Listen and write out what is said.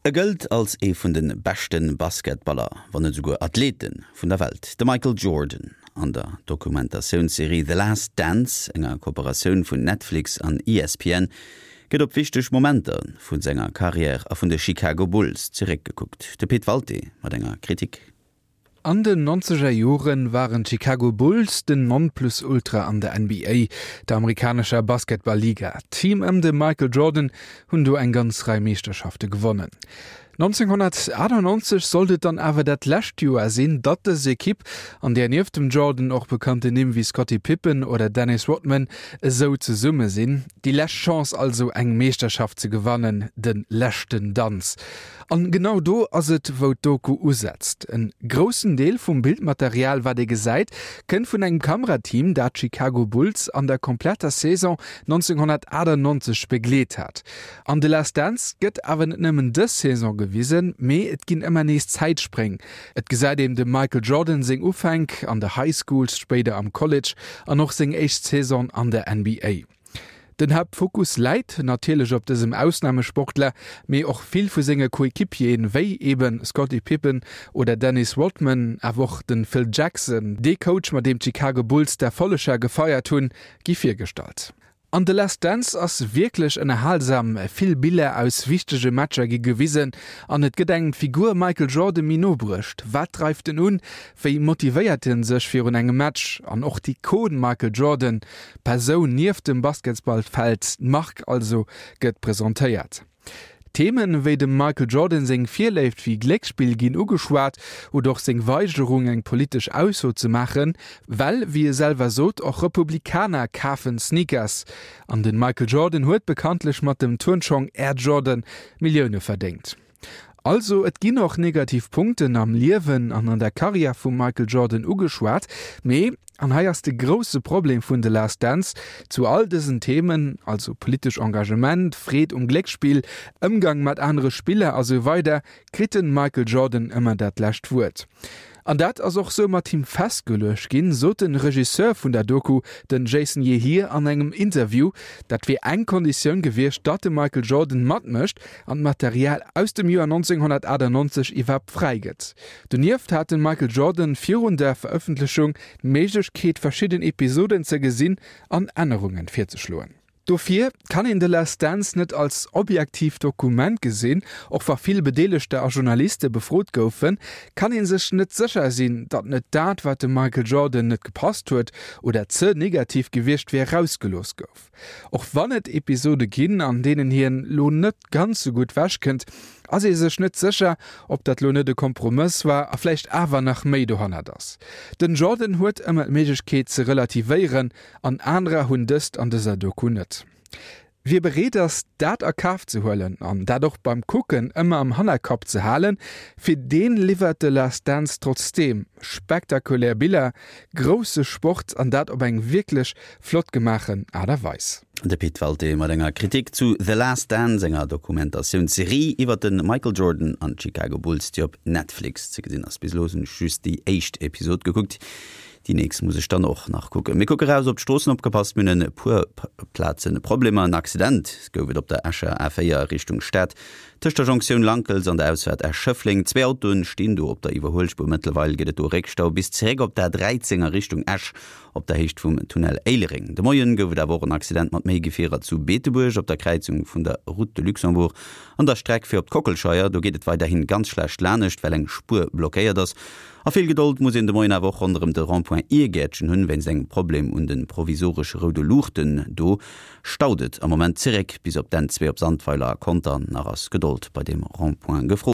E gëllt als ee vun de beschte Basketballer, wann net esouguer Athlete vun der Welt, de Michael Jordan. An der Dokumentatiounsserie The Last Dance, enger Kooperatioun vun Netflix an ESPN, gëtt op wichteg Momenter vu senger Karriär a vun de Chicago Bulls zeréckgekuckt. De Pit Walté mat enger Kritik. An den nonzeger Joren waren d'Chicago Bulls den Nonplusultra an der NBA, der amerikanescher Basketball-Liga. D'Team ëm de Michael Jordan hunn do eng ganz Rei Meeschterschafte gewonnen. 1998 sollt et dann awer dat lescht Joer sinn, datt dës Ekipp, an där nieft dem Jordan och bekannten Nimm wéi Scottie Pippen oder Dennis Rodman esou zesumme sinn, déi lescht Chance also eng Meeschterschaft ze gewannen, de leschten Danz. An genau do ass et wou d'Doku usetzt. En groussen Deel vum Bildmaterial wat ee gesäit kënnt vun engem Kamerateam dat d'Chicago Bulls an der kompletter Saison 1998 begleet hat. An The Last Dance gëtt awer net nëmmen dës Saison gewisen, mee et ginn ëmmer nees Zäitspréng. Et gesäit een dem Michael Jordan seng Ufänk an der High School, spéider am College an och seng éischt Saison an der NBA. Den Haaptfokus läit natierlech op dësem Ausnamesportler, mee och vill vu senge Coequipieren, wéi eben Scottie Pippen oder Dennis Rodman, awer och de Phil Jackson, dee Coach mat deem d'Chicago Bulls d'Erfolleger gefeiert hunn, gi virgestallt. An The Last Dance ass wierklech ënnerhalsam, vill Biller aus wichtege Matcher gi gewisen an et gëtt engem d'Figur Michael Jordan méi no bruecht. Wat dreift en un? Wéi motivéiert en sech virun engem Match? An och d'Ikon Michael Jordan, D'Persoun nieft dem Basketsballfeld, d'Mark also, gëtt presentéiert. Themen wéi dem Michael Jordan seng Virléift fir Glécksspill ginn ugeschwat oder och seng Weigerung eng politesch Ausso ze maachen, well, wéi e selwer sot, och Republikaner kafen Sneakers. An den Michael Jordan huet bekanntlech mat dem Turnschong Air Jordan Millioune verdéngt. Also et ginn och negativ Punkten am Liewen an an der Karriär vum Michael Jordan ugeschwat, mee, an hei ass de grousse Problem vun The Last Dance, zu all dësen Themen, also politesch Engagement, Freed um Glécksspill, Ëmgang mat anere Spiller a sou weider, kritt de Michael Jordan ëmmer dat lescht Wuert. An dat ass och sou mat him festgeluecht ginn, sot de Regisseur vun der Doku, den Jason Yehir an engem Interview. Dat wier eng Konditioun gewiescht, datt de Michael Jordan matmécht an d'Material aus dem Joer 1998 iwwerhaapt fräi gëtt. Donieft hat de Michael Jordan virun der Verëffentlechung d'Méiglechkeet verschidden Episoden ze gesinn an Ännerungen virzeschloen. Dofir kann een The Last Dance net als objektiivt Dokument gesinn. Och wa vill Bedeelegter a Journaliste befrot goufen, kann ee sech net sécher sinn, datt net dat, wat dem Michael Jordan net gepasst huet oder ze negativ gewiescht wier, rausgelooss gouf. Och wann et Episode ginn, an deenen hien lo net ganz sou gutt wechkënnt, ass ee sech net sécher, ob dat lo net e Kompromëss war a vläicht awer nach méi dohannert ass. Den Jordan huet ëmmer d'Méiglechkeet ze relativéieren, An anerer hunn dëst an dëser Doku net. Wie bereet ass, dat a Kaf ze huelen an dat och beim Kucken ëmmer am Hannerkapp ze halen, fir deen liwwert The Last Dance trotzdeem spektakulär Biller, grousse Sport an dat op eng wierklech flott gemaachen Aart a Weis. De Pit Walté mat enger Kritik zu The Last Dance, enger Dokumentatioun-Serie iwwer de Michael Jordan an d'Chicago Bulls, déi op Netflix ze gesinn ass. Bis elo hunn ech just déi éischt Episod gekuckt. Déi nächst muss ech dann och nach kucken. Mir kucke raus op d'Stroossen. Opgepasst, mir hunn e puer Plazen Problemer. En Accident gouf et op der Escher A4 Richtung Stad, tëscht der Jonktioun Lankels an der Ausfaart Esch-Schëffleng. Zwee Autoen stinn do op der Iwwerhuelspuer. Mëttlerweil gëtt et do Réckstau bis zeréck op d'A13 a Richtung Esch op der Héicht vum Tunnel Éilereng. De Moien gouf et awer och en Accident mat méi Gefierer zu Beetebuerg op der Kräizung vun der Route de Luxembourg an der Streck fir op d'Kockelscheier. Do geet et weiderhin ganz schlecht lanescht, well eng Spuer blockéiert ass. A vill Gedold muss een de Moien awer och ronderëm de Rond-point Iergäertchen hunn, wéinst engem Problem un de provisoresche roude Luuchten. Do staut et am Moment zeréck bis op d'N 2 op Sandweiler a Conter. Nach ass Gedold bei deem Rond-point gefrot.